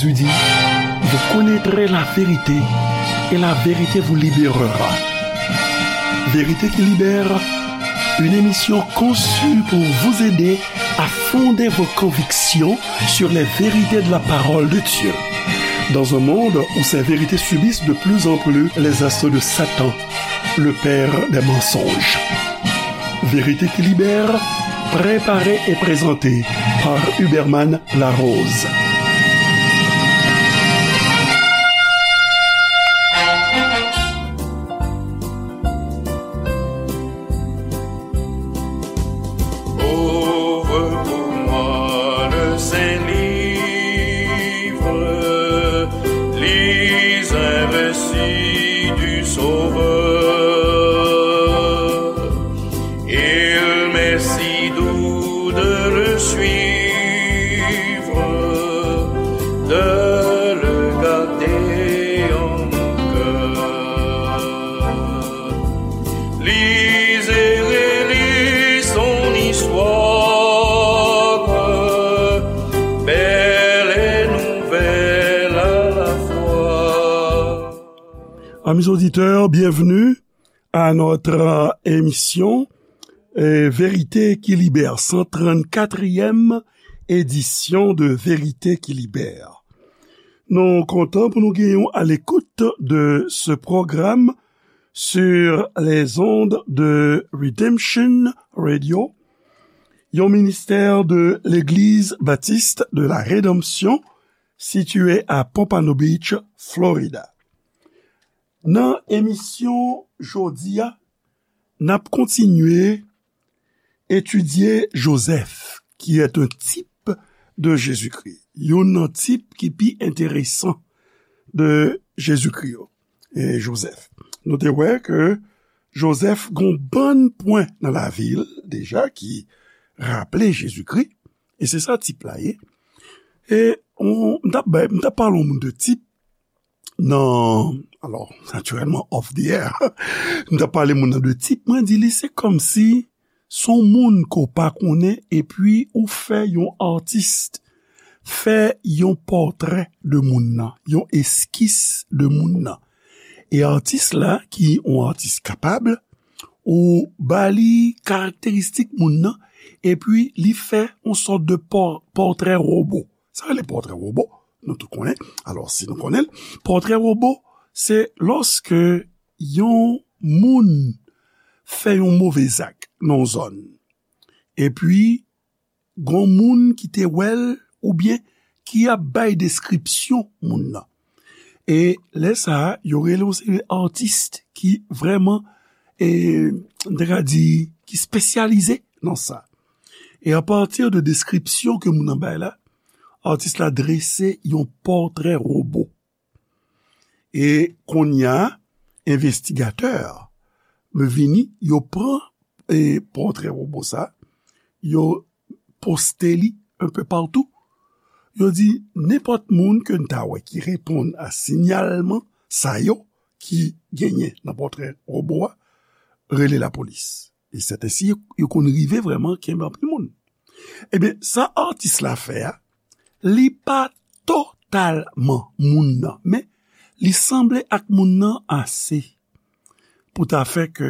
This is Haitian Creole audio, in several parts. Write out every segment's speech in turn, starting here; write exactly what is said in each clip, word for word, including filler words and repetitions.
Jésus dit, vous connaîtrez la vérité et la vérité vous libérera. Vérité qui libère, une émission conçue pour vous aider à fonder vos convictions sur les vérités de la parole de Dieu. Dans un monde où ces vérités subissent de plus en plus les assauts de Satan, le père des mensonges. Vérité qui libère, préparée et présentée par Huberman Larose. Ouvre pour moi le Saint-Livre, lis un récit du Sauveur. Il m'est si doux de le suivre, de le garder en mon cœur. Lis et relis son histoire, belle et nouvelle à la fois. Amis auditeurs, bienvenue à notre, euh, émission, euh, Vérité qui libère, cent trente-quatrième édition de Vérité qui libère. Nou kontan pou nou genyen w à l'écoute de ce programme sur les ondes de Redemption Radio, yon ministè de l'Église Baptiste de la Rédemption, situé à Pompano Beach, Florida. Nan emisyon jodi a, n ap kontinye etidye Jozèf, qui est un type de Jésus-Christ. Youn nan tip ki pi enteresan de Jezikri yo, e Jozèf. Nou te wè ke Jozèf gon bann pwen nan lavi l deja ki raple Jezikri, e se sa tip la ye. E on, m t ap bay, m t ap pale yon moun de tip nan, alò, natirèlman, off the air, m t ap pale moun nan de tip, mwen di li se kòmsi se yon moun ke w pa konnen, epi ou fè yon atis fè yon pòtrè de moun nan, yon eskis de moun nan. E atis la, ki yon atis kapab, ou ba li karakteristik moun nan, epi li fè yon sòt de pò-, pòtrè wobo. Sa rele pòtrè wobo, nou tout konnen. Alò, si nou konnen l, pòtrè wobo, se lòske yon moun fè yon move zak nan yon zòn. Epi, gon moun ki te wè l oubyen ki ap bay deskripsyon moun nan. E lè sa a, yo rele yon seri atis ki vrèman, e, m ta ka di, ki espesyalize nan sa. E apati de deskripsyon ke moun nan bay la, atis la drese yon pòtrè wobo. E kounye a, envestigatè vini, yo pran, e, pòtrè wobo sa, yo poste li un peu partout. Yo di, nenpòt moun ke n ta wè ki reponn a sinyalman sa yo ki genyen nan pòtrè wobo a, rele lapolis. E sètensi, yo, yo konn rive vrèman kenbe anpil moun. Ebyen, sa atis la fè a, li pa totalman moun nan, men li sanble ak moun nan ase pou ta fè ke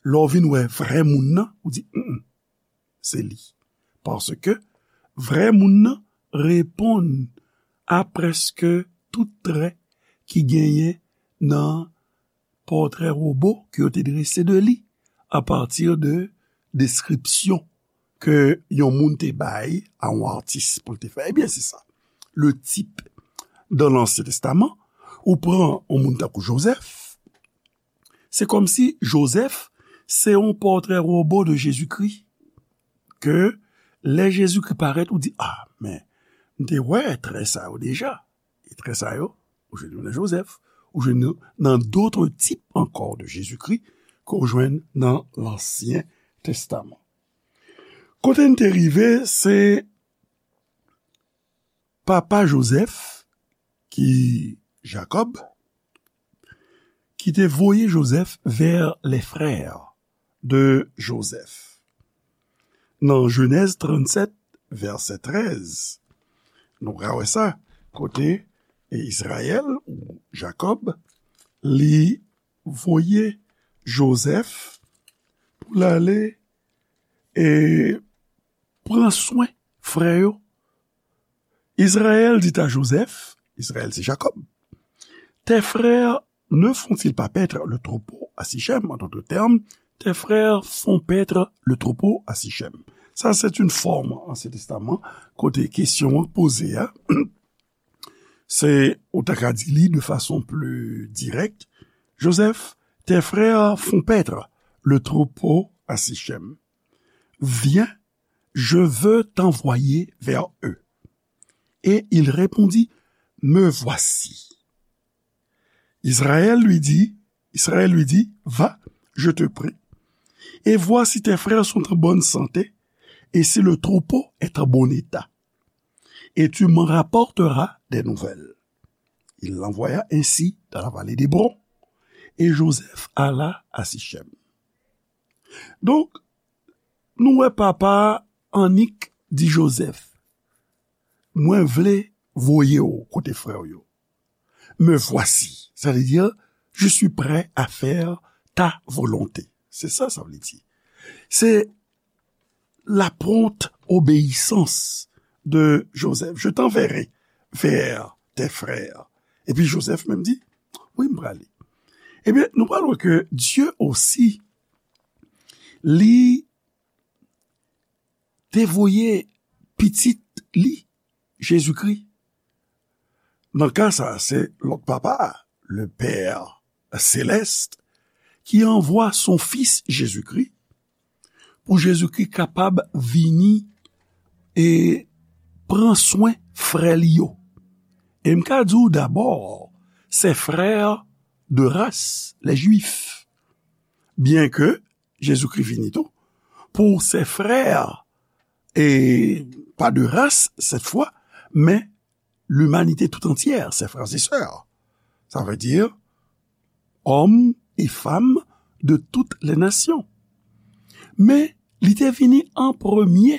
lè w vin wè vrè moun nan, ou di, "Mm, mm, se li." Paske vrè moun nan reponn a prèske tout trè ki genyen nan pòtrè wobo ke yo te drese de li apati de deskripsyon ke yon moun te bay a yon atis pou l te fè. Ebyen, se sa. Le type dans l'Ancien Testament, ou pran yon moun tankou Jozèf, se kòmsi Jozèf se yon pòtrè wobo de Jezikri, ke lè Jezikri parèt, ou di, "Ah, men, m te wè trè sa yo deja." E trè sa yo, ou jwenn yo nan Jozèf, ou jwenn yo nan d'autres types encore de Jésus-Christ ke w jwenn nan Lansyen Testaman. Kote n te rive, se papa Jozèf, ki Jakòb, ki te voye Jozèf vers les frères de Joseph. Nan Jenèz trannsèt, vèsè trèz, nou ka wè sa, kote e Izrayèl ou Jakòb, li voye Jozèf pou l ale e pran swen frè yo. Israël dit à Joseph, Izrayèl se Jakòb, tes frères ne font-ils pas paître le troupeau à Sichem? En d'autres termes, tes frères font paître le troupeau à Sichem. Sa se yon fòm Ansyen Testaman kote kesyon an poze a. Se, ou ta ka di li de fason pli dirèk, Joseph, tes frères font paître le troupeau à Sichem. Viens, je veux t'envoyer vers eux. Et il répondit, me voici. Israël lui dit, Israël lui dit, va, je te prie, et vois si tes frères sont en bonne santé, et si le troupeau est en bon état. Et tu m'en rapporteras des nouvelles. Il l'envoya ainsi dans la vallée d'Hébron, et Joseph alla à Sichem. Donk, nou wè papa annik di Jozèf, mwen vle voye w kote frè w yo. Me voici, sa vle di, je suis prêt à faire ta volonté. Se sa sa vle di. Se la prompte obéissance de Joseph. Je t'enverrai vers tes frères. Epi Jozèf menm di, wi, m prale. Ebyen, nou pral wè ke Dye osi, li te voye pitit li, Jezikri. Nan ka sa, se lòt papa a, le Père Céleste, ki anvwa son Fis Jezikri, pou Jezikri kapab vini e pran swen frè li yo. E m ka di w dabò, ses frères de race, les Juifs. Byenke Jezikri vini tou pou ses frères, et pas de race cette fois, mais l'humanité tout entière, ses frères et sœurs. Ça veut dire hommes et femmes de toutes les nations. Men li te vini an premye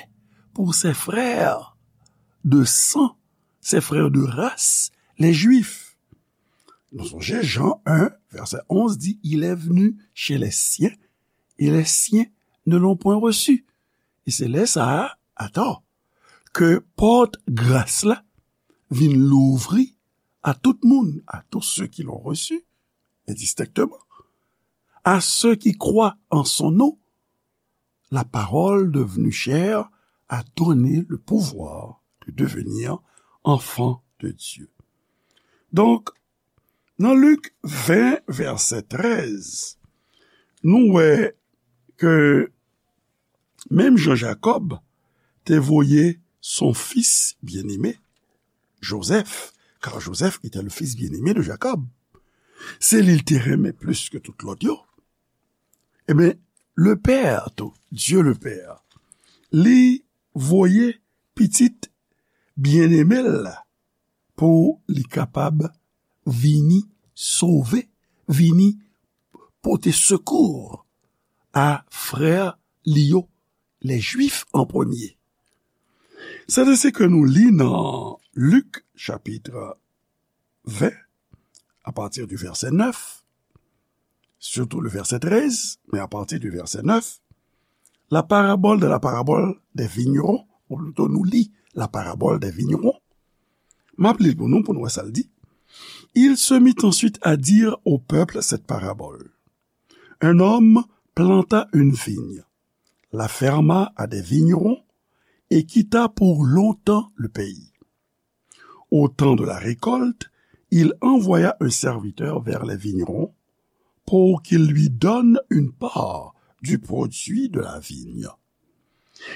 pou ses frères de sang, ses frères de race, les Juifs. Nou sonje Jan en, vèsè onz di, il est venu chez les siens, et les siens ne l'ont point reçu. E se lè sa a, atò, ke pòt gras la vin louvri à tout moun, à tous ceux qui l'ont reçu, indistinctement, à ceux qui croient en son nom, la parole devenue chair a donné le pouvoir de devenir enfant de Dieu. Donk, nan Lik ven, vèsè trèz, nou wè ke menm jan Jakòb te voye son fils bien-aimé, Joseph, car Joseph était le fils bien-aimé de Jacob. Se li l te renmen plis ke tout lòt yo. Ebyen, le Père tou, Dieu le Père, li voye pitit byeneme l la pou li kapab vini sove, vini pote sekou a frè li yo, les Juifs en premier. Sa se sa ke nou li nan Lik chapit ven, à partir du verset neuf, surtout le verset treize, mais à partir du verset neuf, la parabole de la parabole des vignerons, ou plito nou li la parabole des vignerons. M ap li l pou nou, pou nou wè sa l di. Il se mit ensuite à dire au peuple cette parabole. Un homme planta une vigne, la ferma à des vignerons et quitta pour longtemps le pays. Au temps de la récolte, il envoya un serviteur vers les vignerons pour qu'il lui donne une part du produit de la vigne.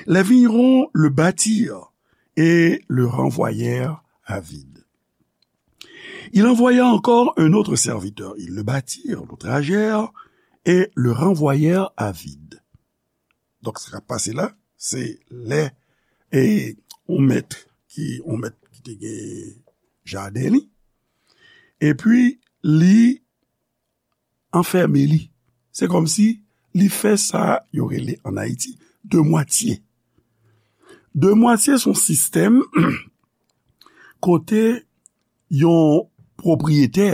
Les vignerons le battirent et le renvoyèrent à vide. Il envoya encore un autre serviteur. Ils le battirent, l'outragèrent et le renvoyèrent à vide. Donk, sa k ap pase la, se lè e yon mèt ki, yon mèt ki te gen jaden li, epi li anfème li. Se kòmsi li fè sa yo rele ann Ayiti de mwatye. De mwatye se yon sistèm kote yon pwopriyetè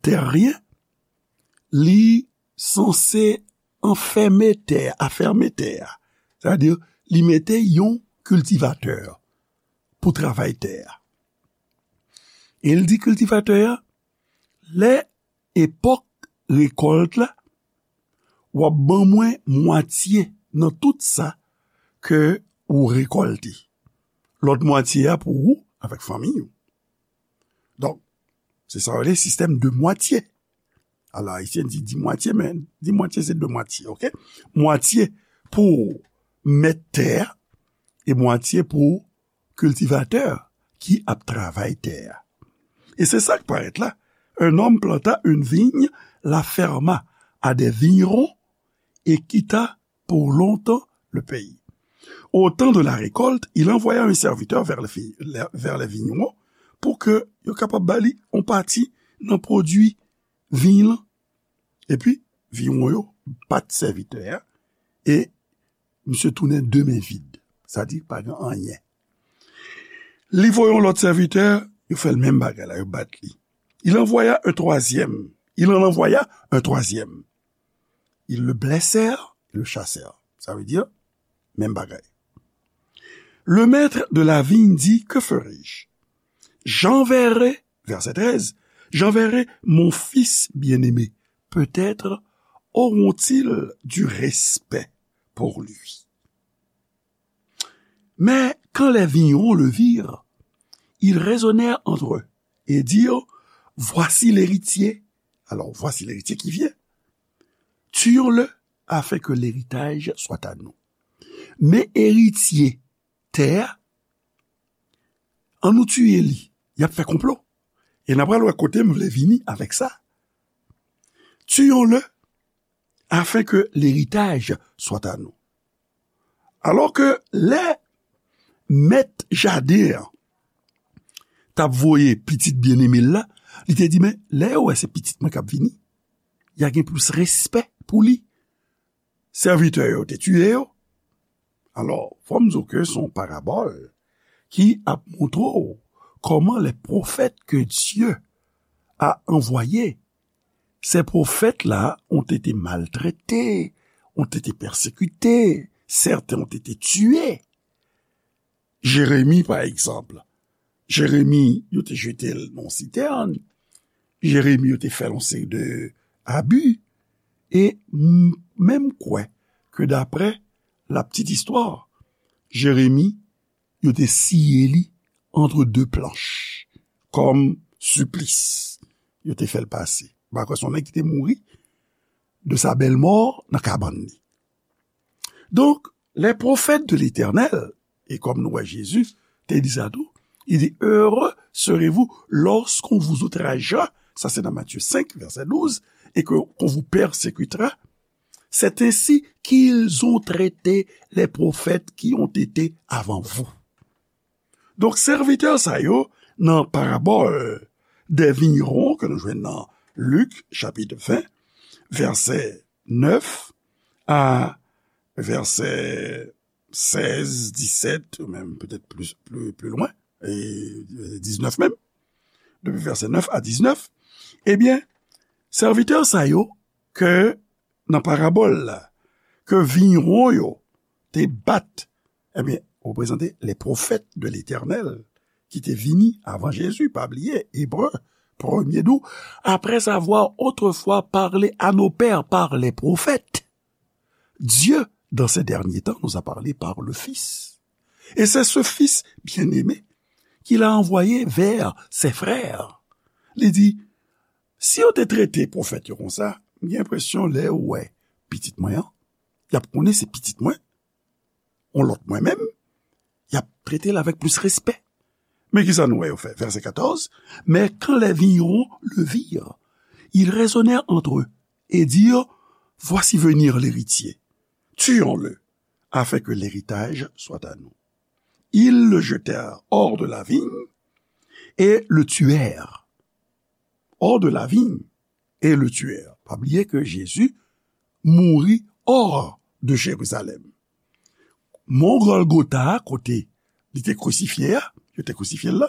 tèryen, li sanse anfèmen tè a, afèmen tè a. Sètadi, li mete yon kiltivatè pou travay tè a. E l di kiltivatè a, lè epòk rekòlt la, w ap ban mwen mwatye nan tout sa ke ou rekòlte. Lòt mwatye a pou ou avèk fanmi ou. Donk, se sa yo rele sistèm de mwatye. Alò, ayisyen di, di mwatye, men di mwatye se de mwatye, oke? Mwatye pou mèt tè a e mwatye pou kiltivatè ki ap travay tè a. E se sa k parèt la. Un homme planta une vigne, la ferma à des vignerons et quitta pour longtemps le pays. Au temps de la récolte, il envoya un serviteur vers les, vers les vignerons pou ke yo kapab ba li yon pati nan pwodui viy lan. Epi, vigneron yo bat sèvitè a, e misye tounen de men vid. Sa di, pa gen anyen. Li voye yon lòt sèvitè, yo fè l menm bagay la, yo bat li. Il envoya un troisième. Il en envoya un troisième. Ils le blessèrent et le chassèrent. Sa vle di, menm bagay. Le maître de la vigne dit, que ferai-je? J'enverrai, verset treize, j'enverrai mon fils bien-aimé. Peut-être auront-ils du respect pour lui. Mais quand les vignerons le virent, ils raisonnèrent entre eux et dirent, voici l'héritier. Alors, voici l'héritier qui vient. Tuons-le afin que l'héritage soit à nous. Men eritye tè a, an nou tiye li. Y ap fè konplo. E n a pral wè kote m vle vini avèk sa. Tuons-le afin que l'héritage soit à nous. Alò ke lè mèt jaden an t ap voye pitit byeneme l la, li te di, men lè yo wè se pitit mwen k ap vini, y a gen plis respè pou li. Sèvitè yo te tiye yo. Alò, fò m di w ke se yon parabòl ki ap montre w kòman les prophètes que Dieu a envoyés, ces prophètes-là ont été maltraités, ont été persécutés, certains ont été tués. Jeremi, pa egzanp. Jeremi, yo te jete l nan sitèn. Jeremi, yo te fè l yon seri de abi. E m, men m kwè ke daprè la petite histoire, Jeremi, yo te siye li entre deux planches, kòm siplis. Yo te fè l pase. M pa kwè se yon nèg ki te mouri de sa bèl mò nan kabann li. Donk, les prophètes de l'Éternel, e kòm nou wè Jezi te di sa tou, il dit, heureux serez-vous lorsqu'on vous outragera, sa se nan Matthieu cinq, verset douze, et que, qu'on vous persécutera, c'est ainsi qu'ils ont traité les prophètes qui ont été avant vous. Donk, sèvitè sa yo, nan parabòl des vignerons ke nou jwenn nan Lik, chapit ven, vèsè nèf a vèsè sèz, disèt, ou menm petèt plis, pli, pli lwen, e diznèf menm, depi vèsè nèf a diznèf, ebyen, sèvitè sa yo ke nan parabòl la, ke vigneron yo te bat, ebyen, reprezante les prophètes de l'Éternel ki te vini avan Jezi, pa bliye, Ebre, premye nou, après avoir autrefois parlé à nos pères par les prophètes, Dieu, dans ces derniers temps, nous a parlé par le Fils. Et c'est ce Fils bien-aimé qu'il a envoyé vers ses frères. Li di, si yo te trete pwofèt yo konsa, m gen enpresyon lè yo wè pitit mwen an, y ap konnen se pitit mwen, yon lòt mwen menm, y ap trete l avèk plis respè. Men ki sa nou wè yo fè? Vèsè katòz, mais quand les vignerons le virent, ils raisonnèrent entre eux et dirent, voici venir l'héritier, tuons-le, afin que l'héritage soit à nous. Ils le jetèrent hors de la vigne et le tuèrent. Hors de la vigne et le tuèrent. Pa bliye ke Jezi mouri hors de Jérusalem. Mont Golgotha, kote li te krisifye a, yo te krisifye l la,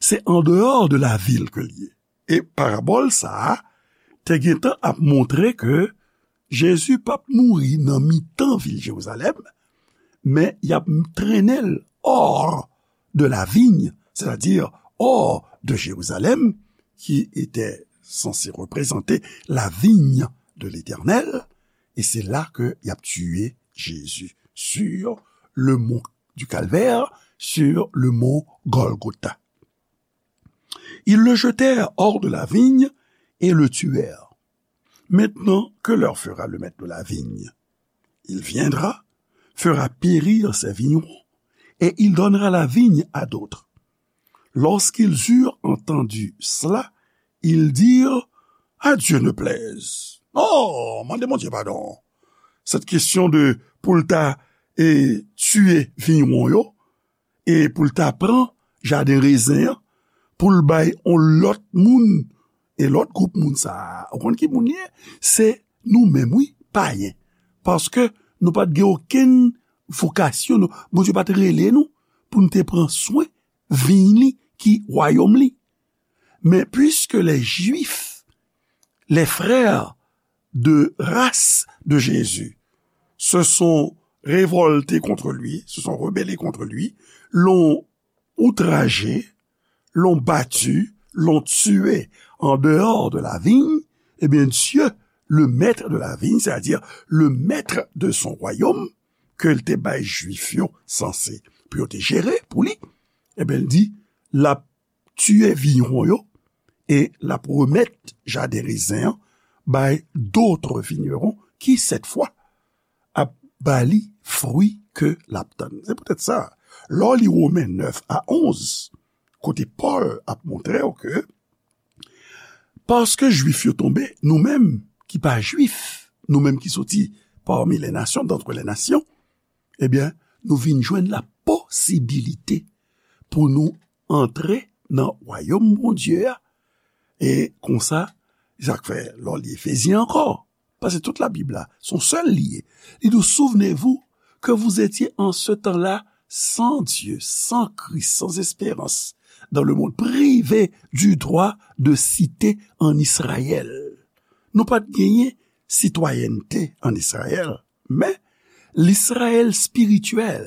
Se an dehors de la ville ke l ye. E parabòl sa a te gentan ap montre ke Jezi p ap mouri nan mitan vil Jerizalèm, men y ap trennen l hors de la vigne, c'est-à-dire hors de Jérusalem, qui était censé représenter la vigne de l'Éternel, et c'est là que y ap tiye Jezi, sur le mont du Calvaire, sur le mont Golgotha. Ils le jetèrent hors de la vigne et le tuèrent. Maintenant, que leur fera le maître de la vigne ? Il viendra, fera périr ses vignerons, et il donnera la vigne à d'autres. Lorsqu'ils eurent entendu cela, ils dirent : « À Dieu ne plaise. » Oh, mande Bondye padon. Cette question de pou l ta e tiye vigneron yo, e pou l ta pran jaden rezen an, pou l bay yon lòt moun, e lòt gwoup moun sa a, ou konn ki moun li ye? Se nou menm, wi, payen. Paske nou pa t gen okenn vokasyon, nou, Bondye pa t rele nou pou n te pran swen vin li ki wayòm li. Mais puisque les Juifs, les frères de race de Jésus, se sont révoltés contre lui, se sont rebellés contre lui, l'ont outragé, l'ont battu, l'ont tué en dehors de la vigne, eh bien, Dieu, le maître de la vigne, c'est-à-dire le maître de son royaume, ke l te bay Jwif yo sanse pou yo te jere pou li, eh bien, l di, l ap tiye vigneron yo, e l ap remèt jaden rezen an bay d'autres vignerons ki, cette fois, ap ba li fwi ke l ap tann. Se poutèt sa, lè w li Women nèf a onz, kote Pòl ap montre w ke, paske Jwif yo tonbe, nou menm ki pa Jwif, nou menm ki soti parmi les nations, d'entre les nations, ebyen, nou vin jwenn la posibilite pou nou antre nan wayòm Bondye a. E konsa, sa k fè, lè w li Efezyen ankò, paske tout Labib la, se yon sèl li ye. Li di w, souvenez-vous que vous étiez en ce temps-là sans Dieu, sans Christ, sans espérance, dans le monde, privés du droit de cité en Israël. Nou pa t genyen sitwayènte ann Izrayèl, men Izrayèl espirityèl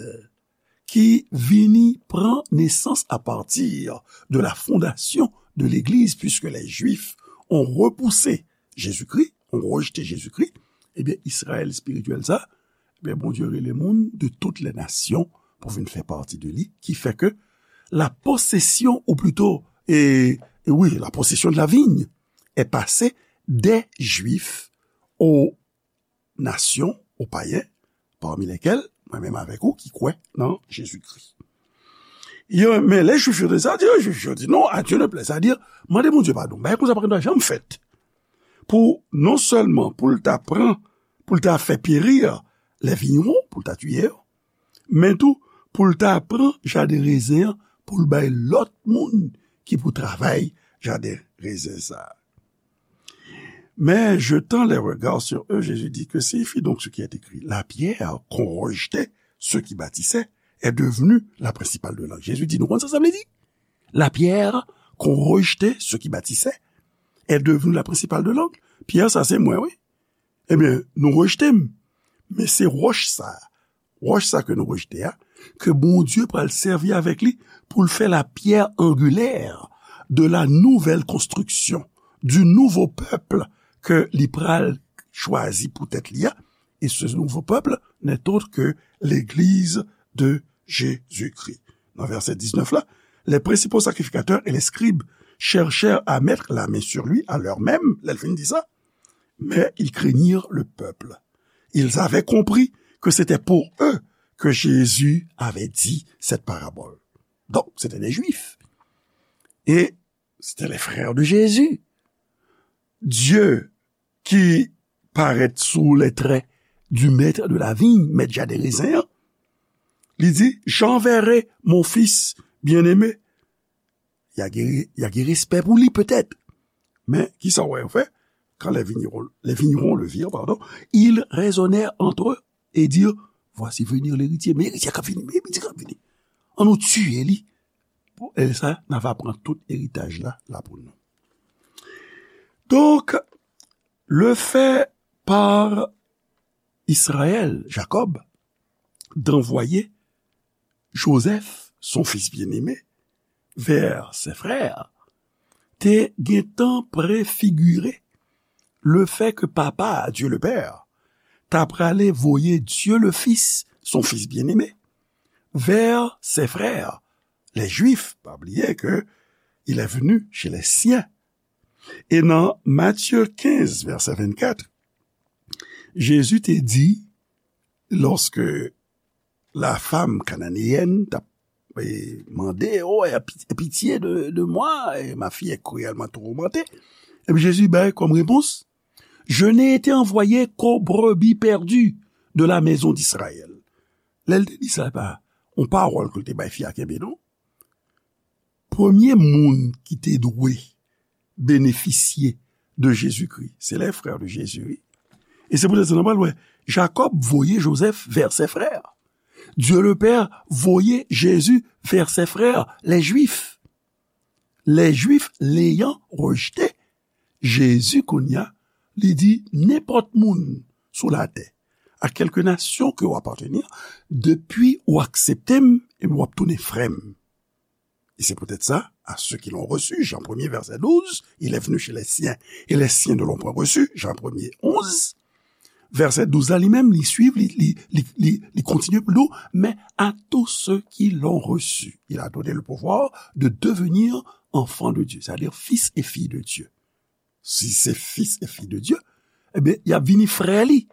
ki vini pran nesans à partir de la fondation de l'Église, puisque les Juifs ont repoussé Jésus-Christ, ont rejeté Jésus-Christ, ebyen, Izrayèl espirityèl sa, ebyen, Bondye rele moun de toutes les nations pou vin fè pati de li, ki fè ke la possession, ou plutôt, et, et oui, la possession de la vigne est passée des Juifs aux nations, aux païens, parmi lesquels, mwen menm avèk ou, ki kwè nan Jezikri. Yo, men lè Jwif yo te sa di, Jwif yo di, non, à Dieu ne plaît. Sa di, mande Bondye padon. Bagay konsa pa gen dwa janm fèt. Pou, non sèlman pou l ta pran, pou l ta fè peri les vignerons, pou l ta tiye yo, men tou, pou l ta pran jaden rezen an, pou l bay lòt moun ki pou travay jaden rezen sa a. Mais jetant les regards sur eux, Jésus dit : Que signifie donc ce qui est écrit ? La pierre qu'ont rejetée ceux qui bâtissaient est devenue la principale de l'angle. Jezi di, nou konn sa sa vle di? La pierre qu'ont rejetée ceux qui bâtissaient est devenue la principale de l'angle. Pyè sa se mwen, wi. Ebyen, nou rejte m. Men se wòch sa, wòch sa ke nou rejte a, ke Bondye pral sèvi avèk li pou l fè la pierre angulaire de la nouvelle construction, du nouveau peuple ke li pral chwazi pou tèt li a. Et ce nouveau peuple n'est autre que l'Église de Jésus-Christ. Nan vèsè diznèf la, les principaux sacrificateurs et les scribes cherchèrent à mettre la main sur lui à l'heure même, lè l fin di sa, mais ils craignirent le peuple. Ils avaient compris que c'était pour eux que Jésus avait dit cette parabole. Donc, c'était des Juifs. Et c'était les frères de Jésus. Dieu qui paraît sous les traits du maître de la vigne, mèt jaden rezen an, li di, j'enverrai mon fils bien-aimé. Y a gen, y a gen respè pou li petèt. Men, kisa w wè yo fè? Quand les vignerons, les vignerons le virent, pardon, ils raisonnèrent entre eux et dirent, voici venir l'héritier. Men eritye a k ap vini, men eritye a k ap vini. An nou tiye li. pou, e sa, n ava pran tout eritaj la, la pou nou. Donk, le fait par Israël, Jacob, d'envoyer Joseph, son fils bien-aimé, vers ses frères, te gentan prefigire le fait que papa, Dieu le Père, ta prale voye Dieu le Fils, son Fils bien-aimé, vers ses frères, les Juifs. Pa bliye ke il est venu chez les siens. E nan Matthieu quinze, verset vingt-quatre, Jezi te di, lòske la femme cananéenne t ap, e, mande, oh, aie pitié de, de moi, et ma fille est cruellement tourmentée. Epi Jezi bay kòm repons, je n'ai été envoyé qu'aux brebis perdues de la maison d'Israël. Lè l te di sa, pa yon pawòl ke l te bay fi a kenbe, non. Premye moun ki te dwe benefisye de Jezikri, se les frères de Jésus, wi. E se poutèt sa nou pral wè, Jacob voye Joseph vers ses frères. Dieu le Père voye Jésus vers ses frères, les Juifs. Les Juifs l'ayant rejeté, Jezi kounye a, li di, nenpòt moun sou latè, a quelque nation que w appartenir, depi ou aksepte m, epi w ap tounen frè m. Et c'est peut-être ça, à ceux qui l'ont reçu, Jean premier, verset douze, il est venu chez les siens, et les siens ne l'ont point reçu, Jean premier, onze. Vèsè douz la, li menm, li swiv, li, li, li, li, li kontinye pou l di w, mais à tous ceux qui l'ont reçu, il a donné le pouvoir de devenir enfants de Dieu, c'est-à-dire fils et filles de Dieu. Si se fils et filles de Dieu, ebyen, y ap vini frè li.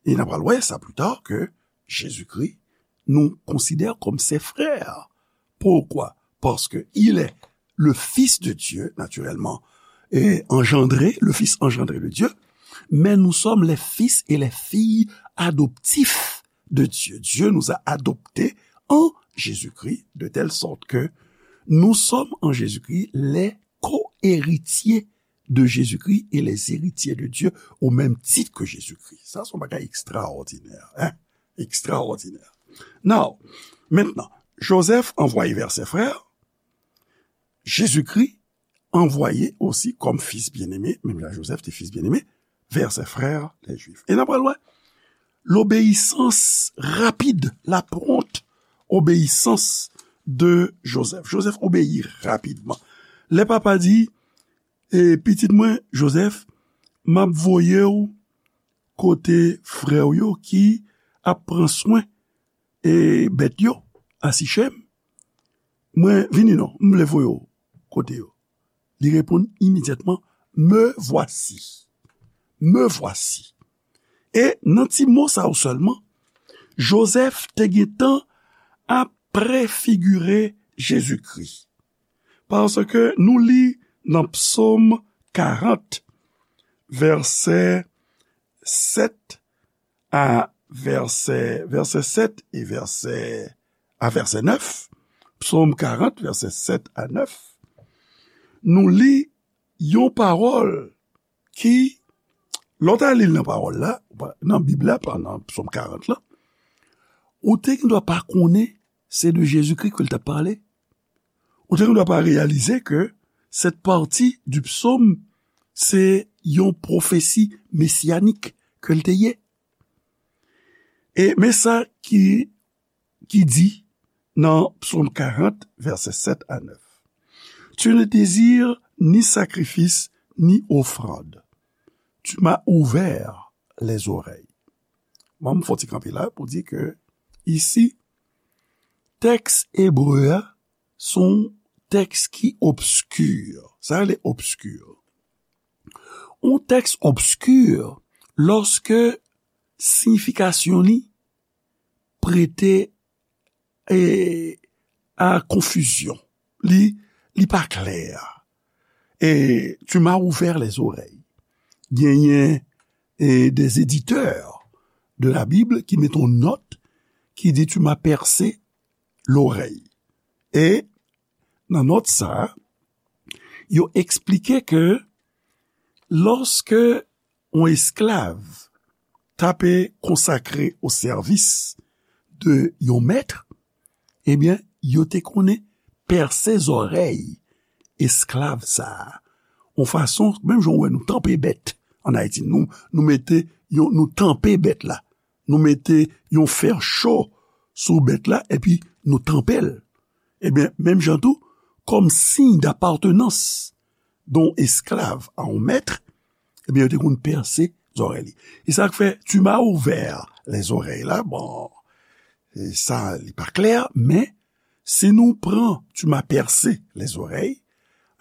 E n a pral wè sa pli ta, ke Jezikri, nous considère comme ses frères. Pourquoi? Parce que il est le Fils de Dieu, naturellement, et engendré, le Fils engendré de Dieu, mais nous sommes les fils et les filles adoptifs de Dieu. Dieu nous a adoptés en Jésus-Christ, de telle sorte que nous sommes en Jésus-Christ les co-héritiers de Jésus-Christ et les héritiers de Dieu au même titre que Jésus-Christ. Sa se yon bagay ekstraòdinè, hein? Ekstraòdinè. Now, maintenant, Joseph envoyé vers ses frères, Jésus-Christ envoyé aussi comme fils bien-aimé, menm jan Joseph te fils bien-aimé, vers ses frères les Juifs. E n a pral wè, l'obéissance rapide, la prompte obéissance de Joseph. Joseph obeyi rapidman. Lè papa di, e pitit mwen, Joseph, m ap voye w kote frè w yo ki ap pran swen, e, bèt yo a Sichem. Mwen, vini non, m vle voye w kote yo. Li reponn imedyatman, me voici. Me voici. E nan ti mo sa yo sèlman, Joseph te gentan ap prefigire Jezikri. Paske nou li nan Psaume quarante, vèsè sept à vèsè, vèsè sept et vèsè, à vèsè neuf, Psaume quarante, vèsè sept à neuf, nou li yon pawòl ki, lè w ta li l nan pawòl la, nan Bib la, pa nan Psaume quarante la, ou te gendwa pa konnen se de Jezikri ke l t ap pale. Ou te gendwa pa reyalize ke cette partie du psaume, se yon pwofesi mesiyanik ke l te ye. E men sa ki, ki di nan Psaume quarante, vèsè sept à neuf. Tu ne désires ni sacrifice, ni offrande. Tu m'as ouvert les oreilles. Bon, m fè yon ti kanpe la pou di ke isi, tèks ebre a, se yon tèks ki obski. Sa rele obski. Yon tèks obski, lòske siyifikasyon li prete, e, a konfizyon. Li, li pa klè. E tu m'as ouvert les oreilles. Genyen, e, des éditeurs de la Bible ki mete yon nòt ki di tu m'as percé l'oreille. E nan nòt sa, yo eksplike ke lòske yon esklav t ape konsakre o sèvis de yon mèt, ebyen, yo te konnen pèse zòrèy esklav sa a. Yon fason, menm jan w wè nou tanpe bèt ann Ayiti, nou, nou mete, yon, nou tanpe bèt la. Nou mete yon fè cho sou bèt la, epi nou tanpe l. Ebyen, menm jan tou, kòm siy d'apartenance d'un esclave à un maître, ebyen, yo te konn pèse zòrèy li. E sa k fè, tu m'as ouvert les oreilles la, bon, e sa, li pa klè, men si nou pran tu m'as percé les oreilles,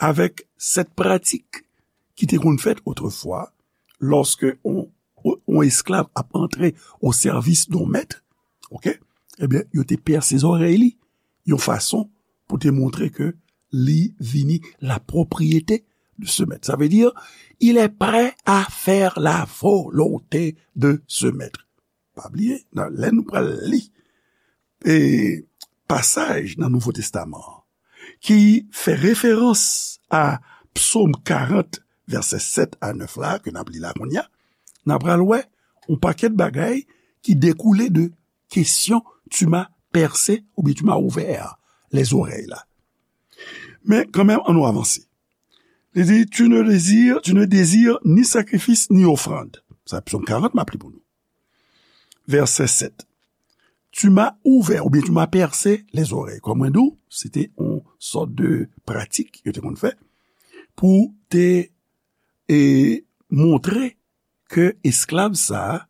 avèk sèt pratik ki te konn fèt otrefwa, lòske on, on esklav ap antre o sèvis d'un maître, ok? Ebyen, yo te pèse zòrèy li, yon fason pou te montre ke li vini la propriété de ce maître. Sa vle di, il est prêt à faire la volonté de ce maître. Pa bliye, nan, lè nou pral li, e, pasaj nan Nouvo Testaman an, ki fè referans a Psaume quarante, vèsè sept à neuf la, ke n ap li la kounye a, n ap pral wè yon pakèt bagay ki dekoule de kesyon tu m'as percé oubyen tu m'as ouvert les oreilles la. Men kanmenm, ann nou avanse. Li di, tu ne désires, tu ne désires ni sacrifice ni offrande. Sa Psaume quarante, m ap li pou nou. Vèsè sept. Tu m'as ouvert, oubyen tu m'as percé les oreilles. Kòm mwen di w, se te yon sòt de pratik yo te konn fè pou te, e, montre ke esklav sa a,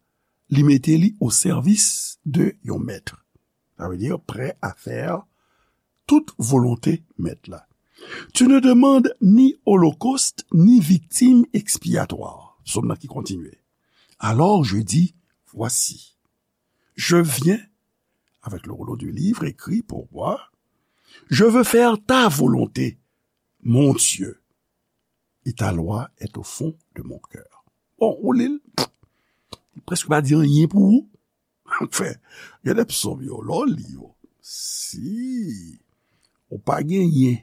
li mete li o sèvis de yon mèt. Sa vle di, prè a fè tout volonte mèt la. Tu ne demandes ni holocauste ni victime expiatoire. Sòm nan ki kontinye. Alors je dis, voici, je viens avec le rouleau du livre écrit pour moi. Je veux faire ta volonté, mon Dieu, et ta loi est au fond de mon cœur. Bon, ou li l, li prèske pa di anyen pou ou. Anfen, gen de psòm yo, lè w li yo, si ou pa genyen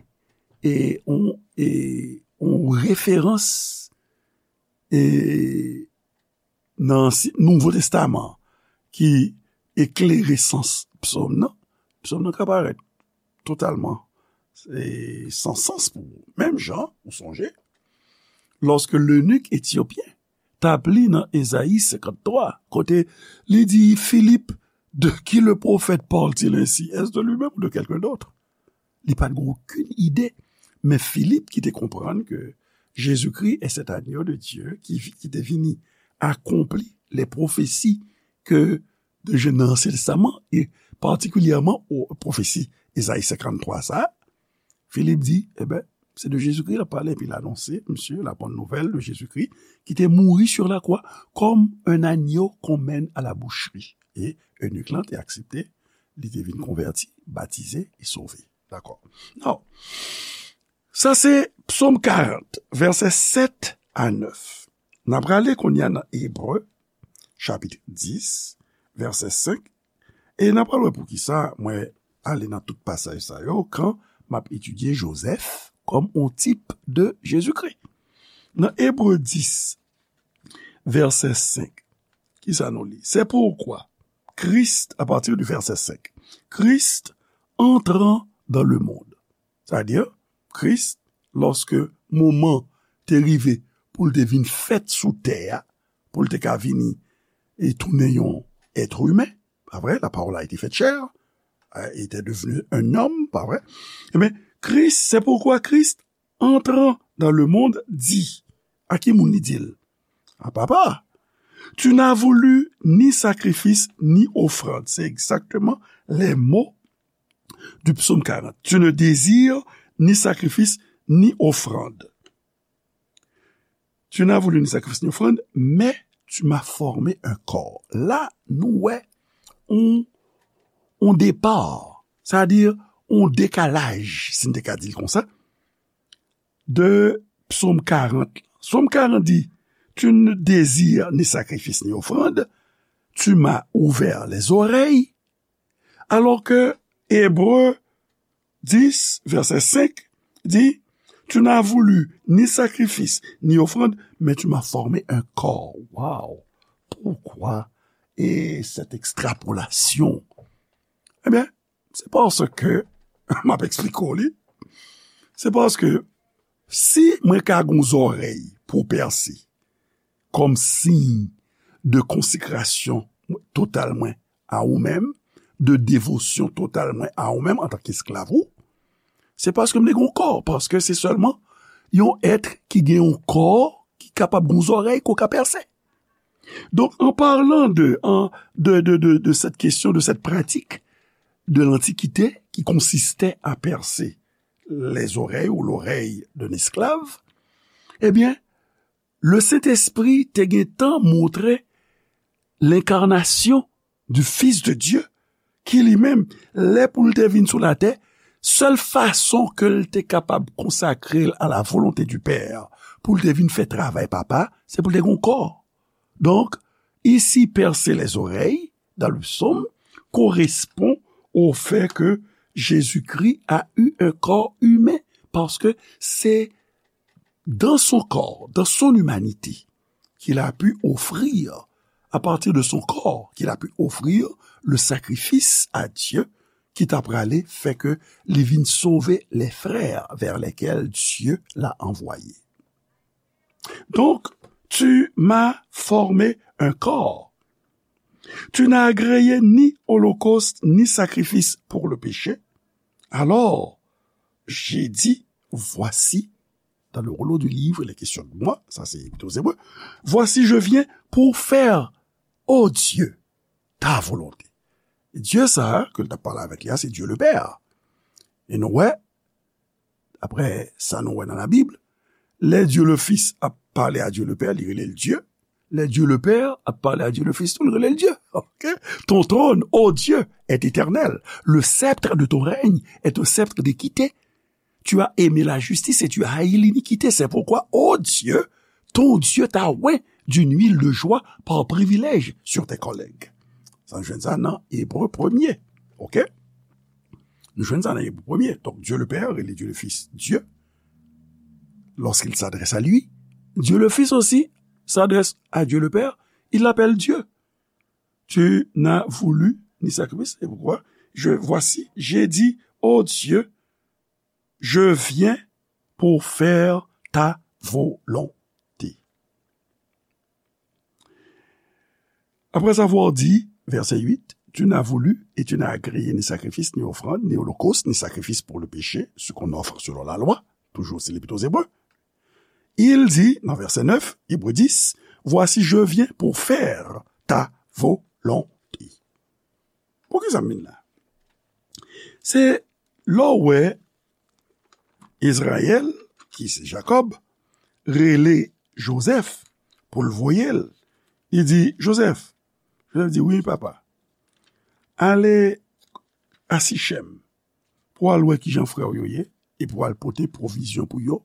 e on, e on referans, e nan si, Nouvo Testaman ki eklere sans psòm nan, psòm nan ka parèt totalman, e, san sans pou ou. Menm jan, ou sonje, lòske lenik etyopyen t ap li nan Ezayi senkanntwa, kote li di Filip, de qui le prophète parle-t-il ainsi? Est-ce de lui-même ou de quelqu'un d'autre? Li pa t gen okenn ide. Men Filip ki te konprann ke Jezikri est cet agneau de Dieu ki, ki te vini akonpli les prophéties ke de je, nan Ansyen Testaman, e patikilyèman o pwofesi Ezayi senkanntwa sa, Filip di, eben, se de Jezikri l ap pale, epi l anonse, misye, la bonne nouvelle de Jésus-Christ, ki te mouri sur la croix comme un agneau qu'on mène à la boucherie. E enik lan te aksepte, li te vin konvèti, batize e sove. Dakò. Now, sa se Psòm karant, vèsè sèt a nèf. N ap prale kounye a nan Ebre, chapit dis, vèsè senk, e n ap pral wè poukisa mwen ale nan tout pasaj sa yo kan m ap etidye Jozèf kòm on tip de Jezikri. Nan Ebre dis, vèsè senk, kisa nou li? C'est pourquoi Christ, à partir du verset cinq, Christ entrant dans le monde. Sa vle di, Kris, lòske moman te rive pou l te vin fèt sou tè a, pou l te ka vini e tounen yon èt imen, pa vre? La parole a été faite chair, euh, était devenu un homme, pa vre? Ebyen, Kris, c'est pourquoi Christ, entrant dans le monde, dit, a ki moun li di l? A Papa. Tu n'as voulu ni sacrifice ni offrande. C'est exactement les mots du psaume quarante. Tu ne désires ni sacrifice ni offrande. Tu n'as voulu ni sacrifice ni offrande, mais tu m'as formé un corps. La, nou wè on, on départ, c'est-à-dire on décalage, si n te ka di l konsa, de Psaume quarante. Psaume quarante dit, tu ne désires ni sacrifice ni offrande, tu m'as ouvert les oreilles, alors que Hébreux dix, verset cinq, dit, tu n'as voulu ni sacrifice, ni offrande, mais tu m'as formé un corps. Wow! Pourquoi et cette extrapolation? Ebyen, se paske m ap eksplike w li. Se paske si mwen ka gen yon zòrèy pou pèse kòm siy de konsekrasyon total mwen a ou menm, de devosyon total mwen a ou menm antanke esklav ou, se paske m te gen yon kò, paske se sèlman yon èt ki gen yon kò ki kapab gen yon zòrèy ke w ka pèse. Donc, en parlant de, en, de, de, de, de cette question, de cette pratique de l'Antiquité qui consistait à percer les oreilles ou l'oreille d'un esclave, eh bien, le Saint-Esprit te gen tan montre l'incarnation du Fils de Dieu, ki li menm, lè pou l te vin sou latè, sèl fason ke l te kapab konsakre l a la volonte du Père, pou l te vin fè travay Papa, se pou l te gen yon kò. Donc, ici, percer les oreilles, dans le psaume, correspond au fait que Jésus-Christ a eu un corps humain, parce que c'est dans son corps, dans son humanité, qu'il a pu offrir, à partir de son corps, qu'il a pu offrir le sacrifice à Dieu, ki ta prale fè ke li vin sove les frères vers lesquels Dieu l'a envoyé. Donc, tu m'as formé un corps. Tu n'as agréé ni holocauste ni sacrifice pour le péché. Alors, j'ai dit, voici, dans le rouleau du livre, il est question de moi, ça c'est plutôt hébreu, voici, je viens pour faire, ô Dieu, ta volonté. Dye sa a, ke l t ap pale avèk li a, se Dye Lepè. E nou wè, daprè sa nou wè nan Labib, lè Dye le Fis ap pale a Dye Lepè, li rele l Dye. Lè Dye Lepè ap pale a Dye le Fis tou, li rele l Dye. Ok? Ton trône, ô Dieu, est éternel. Le sceptre de ton règne est un sceptre d'équité. Tu as aimé la justice et tu as haï l'iniquité. C'est pourquoi, ô Dieu, ton Dieu t'a oint d'une huile de joie par privilège sur tes collègues. Sa nou jwenn sa nan Ebre premye. Ok? Nou jwenn sa nan Ebre premye. Donc, Dieu le Père et Dieu le Fils, Dieu, lorsqu'il s'adresse à lui, Dieu le Fils aussi s'adresse à Dieu le Père, il l'appelle Dieu. Tu n'as voulu ni sacrifice, c'est pourquoi, je, voici, j'ai dit, ô Dieu, je viens pour faire ta volonté. Après avoir dit, verset huit, tu n'as voulu et tu n'as agréé ni sacrifice, ni offrande, ni holocauste, ni sacrifice pour le péché, ce qu'on offre selon la loi, toujours c'est l'Épître aux Hébreux. Il dit, dans verset neuf, Hébreux dix, voici, je viens pour faire ta volonté. Poukisa m vin la? Se lè w wè Izrayèl, ki se Jakòb, rele Jozèf pou l voye l. Li di, Jozèf, Jozèf di, wi, papa, ale a Sichèm pou al wè kijan frè w yo ye, epi w al pote pwovizyon pou yo,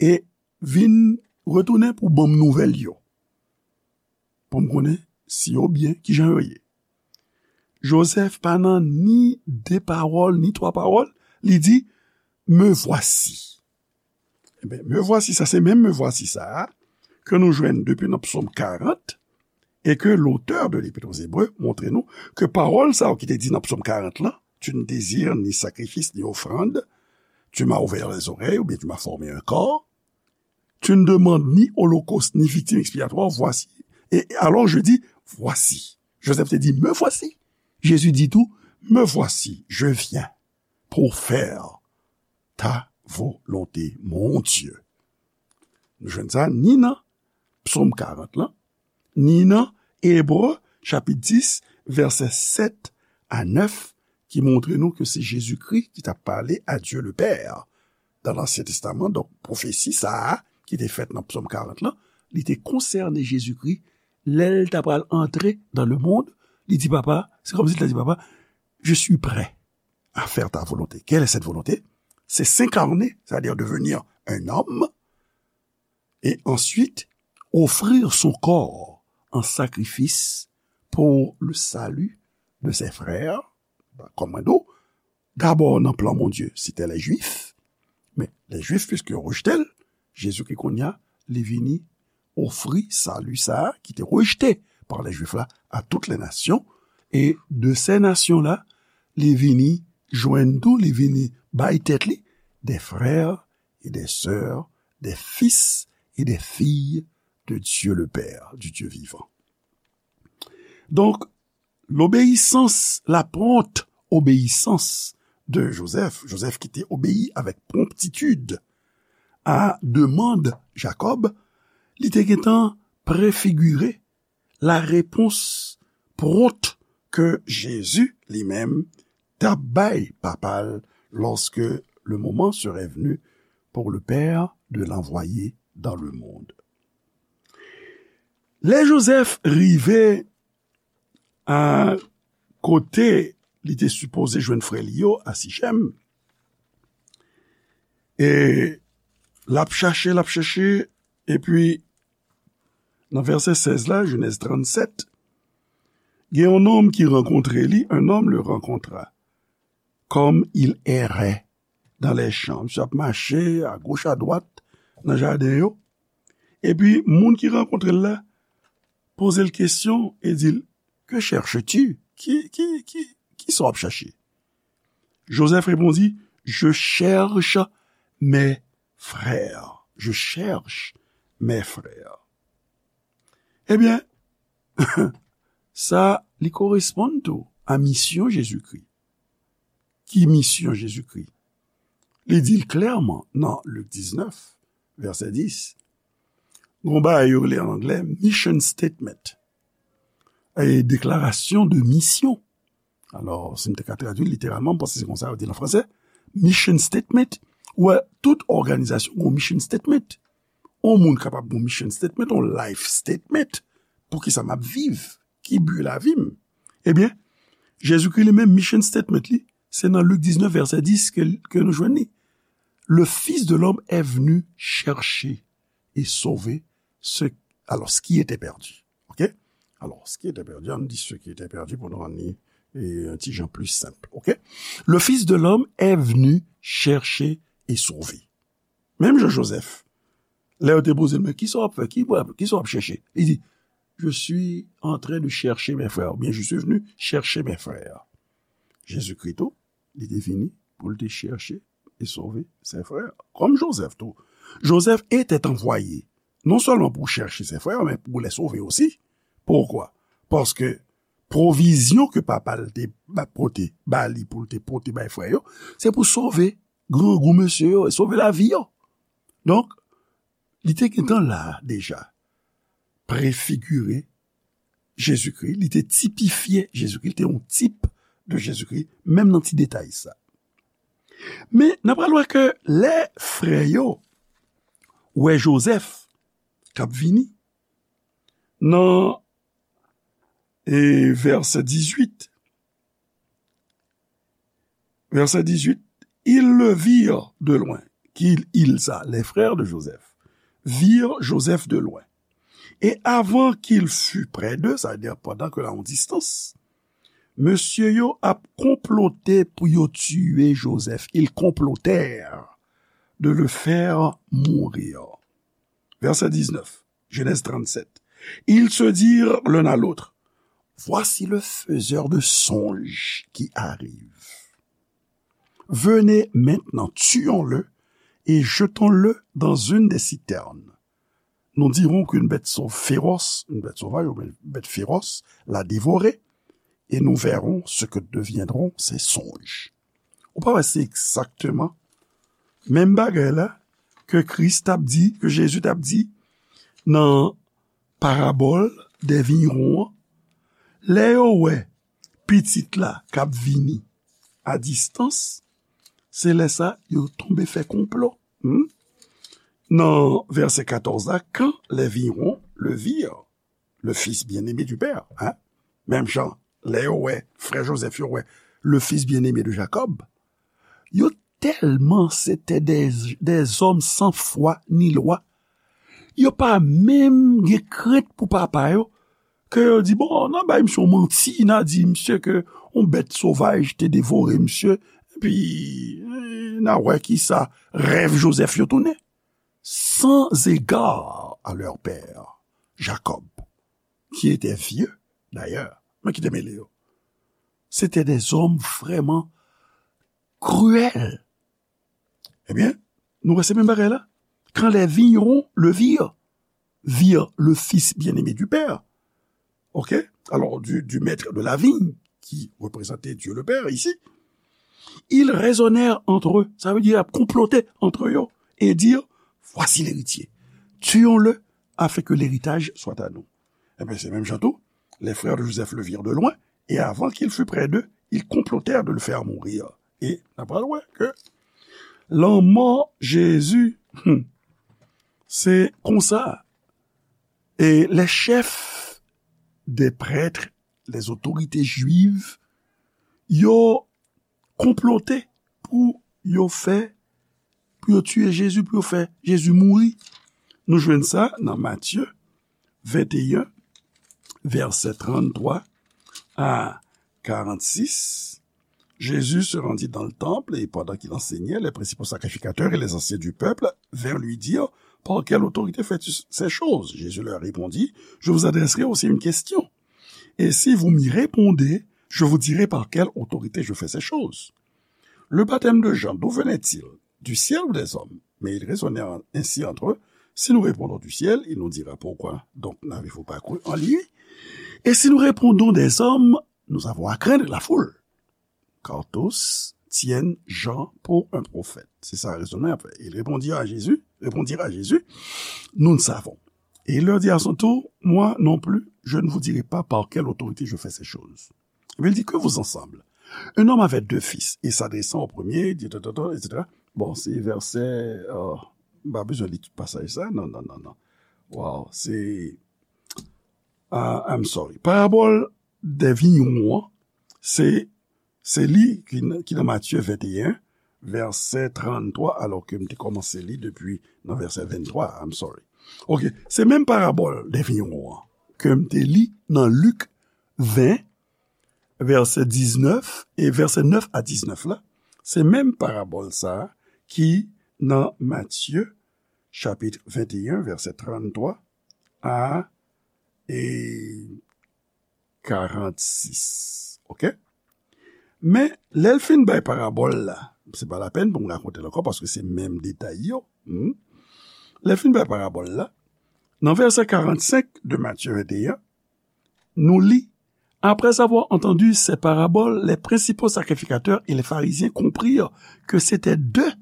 e vin retounen pou ban m nouvèl yo, pou m konnen si yo byen, kijan yo ye. Jozèf pa nan ni de pawòl, ni twa pawòl, li di, me voici. Ebyen, me voici, sa se menm me voici sa a ke nou jwenn depi nan Psaume quarante, e ke l'auteur de l'Épître aux Hébreux montre nou ke pawòl sa yo ki te di nan Psaume quarante lan, tu ne désires ni sacrifice ni offrande, tu m'as ouvert les oreilles, oubyen tu m'as formé un corps, tu ne demandes ni holocauste ni victime expiatoire, voici. Et alors je dis, voici. Joseph te di, me voici. Jésus dit tout, me voici, je viens pour faire ta volonté, mon Dieu. Nou jwenn sa ni nan Psaume quarante lan, ni nan Ebre, chapit dis, vèsè sèt a nèf, ki montre nou ke se Jezikri ki t ap pale a Dye le Pè nan Ansyen Testaman. Donk, pwofesi sa a ki te fèt nan Psaume quarante lan, li te konsène Jezikri lè l ta pral antre dans le monde. Li di, Papa, se kòmsi l ta di, Papa, je suis prêt à faire ta volonté. Quelle est cette volonté? C'est s'incarner, c'est-à-dire devenir un homme, et ensuite offrir son corps en sacrifice pour le salut de ses frères. Kòm mwen di w, dabò nan plan Bondye, se te lè Jwif, men lè Jwif, piske yo rejte l, Jezikri kounye a, li vini ofri sali sa a ki te rejte pa lè Jwif la a tout lè nasyon, e de sè nasyon la, li vini jwenn tou, li vini bay tèt li, des frères et des sœurs, des fils et des filles de Dieu le Père, du Dieu vivant. Donk, lobeyisans, la pwont obeyisans de Jozèf, Jozèf ki te obeyi avèk pwonptitid a demann Jakòb, li te gentan prefigire la repons pwont ke Jezi li menm t ap bay papa l lorsque le moment serait venu pour le Père de l'envoyer dans le monde. Lè Jozèf rive a kote li te sipoze jwenn frè li yo a Sichèm, e l ap chache, l ap chache, epi nan vèsè sèz la, Jenèz trannsèt, gen yon nonm ki rankontre li, un homme le rencontra, comme il errait dans les champs. Misye ap mache agoch adwat nan jaden yo. Epi, moun ki rankontre l la poze l kesyon e di l, Que cherches-tu? Ki, ki, ki, ki sa w ap chache? Jozèf repondi, Je cherche mes frères. Je cherche mes frères. Ebyen, sa, li koresponn tou a misyon Jezikri. Ki misyon Jezikri? Li di l klèman nan Lik diznèf, vèsè dis. Gon bagay yo rele an anglè mission statement. E deklarasyon de misyon. Alò, si m te ka tradui literalman, m panse se konsa yo di l an fransè. Mission statement, ou wè, tout òganizasyon gon mission statement. On moun kapab gon mission statement, on life statement. Poukisa m ap viv? Ki bi lavi m? Ebyen, Jezikri li menm, mission statement li, se nan Lik diznèf, vèsè dis ke, ke nou jwenn li. Le Fils de l'homme est venu chercher et sauver ce, alors, ce qui était perdu. OK? Alors, ce qui était perdu, ann di ce qui était perdu pou nou rann li, e, yon ti jan pli senp. OK? Le Fils de l'homme est venu chercher et sauver. Menm jan Jozèf, lè yo te poze l, men ki sa w ap fè? Ki, ki sa w ap chèche? Li di, Je suis en train de chercher mes frères, oubyen Je suis venu chercher mes frères. Jezikri tou, li te vini pou l te chèche e sove ses frères. Kòm Jozèf tou. Joseph était envoyé, non seulement pour chercher ses frères, mais pour les sauver aussi. Pourquoi? Paske pwovizyon ke papa l te ba, pote, ba li pou l te pote bay frè yo, se pou sove grangou mesye yo, e sove lavi yo. Donk, li te gentan la deja, prefigire Jezikri, li te tipifye Jezikri, li te yon tip de Jezikri, menm nan ti detay sa. Men, n ap pral wè ke lè frè yo wè Jozèf k ap vini, nan, e, vèsè dizuit, vèsè dizuit, ils le virent de loin. Ki il sa? Les frères de Joseph virent Joseph de loin. Et avant qu'il fût près d'eux, sa vle di pandan ke l a yon distans, mesye yo ap konplote pou yo tiye Jozèf. Ils complotèrent de le faire mourir. Vèsè diznèf, Genèse trente-sept. Ils se dirent l'un à l'autre, Voici le faiseur de songes qui arrive. Venez maintenant, tuons-le et jetons-le dans une des citernes. Nous dirons qu'une bête sau-, féroce, une bête sauvage ou une bête féroce l'a dévoré, et nous verrons ce que deviendront ses songes. Ou pa wè se egzakteman menm bagay la ke Kris t ap di, ke Jezi t ap di nan parabòl dè vinyron an. Lè yo wè pitit la k ap vini a distans, se lè sa yo tonbe fè konplo. Hmm? Nan vèsè katòz la, quand les virons le virent, le fils bien-aimé du Père, hein? Menm jan, lè yo wè, frè Jozèf yo wè, le fils bien-aimé de Jacob, yo tèlman se te des, des hommes sans foi ni loi, yo pa menm gen krent pou papa yo, ke yo di, bon, n a bay misye yon manti, n a di misye ke yon bèt sovaj te devore misye, epi, eh, n a wè kisa rèv Jozèf yo tounen. Sans égard à leur père, Jacob, qui était vieux, d'ailleurs, men ki te mele yo. C'était des hommes vraiment cruels. Ebyen, nou wè se menm bagay la. Quand les vignerons le virent, virent le Fils bien-aimé du Père, ok? Alors, du, du maître de la vigne, qui représentait Dieu le Père ici, ils raisonnèrent entre eux, sa vle di, y ap konplote entre yo, et dirent, voici l'héritier, tuons-le, afin que l'héritage soit à nous. Ebyen, se menm jan tou, les frères de Joseph le virent de loin, et avant qu'il fût près d'eux, ils complotèrent de le faire mourir. E n ap pral wè ke lanmò Jezi, hmm, se konsa. E les chefs des prêtres, les autorités juives, yo konplote pou yo fè, pou yo tiye Jezi, pou yo fè Jezi mouri. Nou jwenn sa nan Matye venteyen, vèsè tranntwa a karannsis. Jésus se rendit dans le temple et pendant qu'il enseignait, les principaux sacrificateurs et les anciens du peuple vinrent lui dire, par quelle autorité fais-tu ces choses? Jésus leur répondit, je vous adresserai aussi une question. Et si vous m'y répondez, je vous dirai par quelle autorité je fais ces choses. Le baptême de Jean, d'où venait-il? Du ciel ou des hommes? Mais ils raisonnaient ainsi entre eux. Si nous répondons du ciel, il nous dira, pourquoi donc n'avez-vous pas cru en lui? Et si nous répondons des hommes, nous avons à craindre la foule, car tous tiennent Jean pour un prophète. C'est ça le raisonnement après. Ils répondirent à Jésus, répondirent à Jésus, nous ne savons. Et il leur dit à son tour, moi non plus, je ne vous dirai pas par quelle autorité je fais ces choses. Mais il dit, que vous ensemble? Un homme avait deux fils, et s'adressant au premier, dit, ta, ta, ta, et cetera. Bon, se vèsè, euh, m pa bezwen li tout pasaj sa, non, non, non, non. Wow, se, ah, I'm sorry. Parabòl dè vigneron an, se, se li ki, n- ki nan Matye venteyen, vèsè tranntwa, alò ke m te kòmanse li depi nan vèsè venntwa, I'm sorry. Ok, se menm parabòl dè vigneron an ke m te li nan Lik ven, vèsè diznèf, e vèsè nèf a diznèf la, se menm parabòl sa a ki nan Matye, chapit venteyen, vèsè tranntwa a, e, karannsis. Ok? Men, lè l fin bay parabòl la, se pa lapèn pou m rakonte l ankò, paske se menm detay yo. Hmm? Lè l fin bay parabòl la, nan vèsè karannsenk de Matye venteyen, nous lit, après avoir entendu ces paraboles, les principaux sacrificateurs et les pharisiens comprirent que c'était d'eux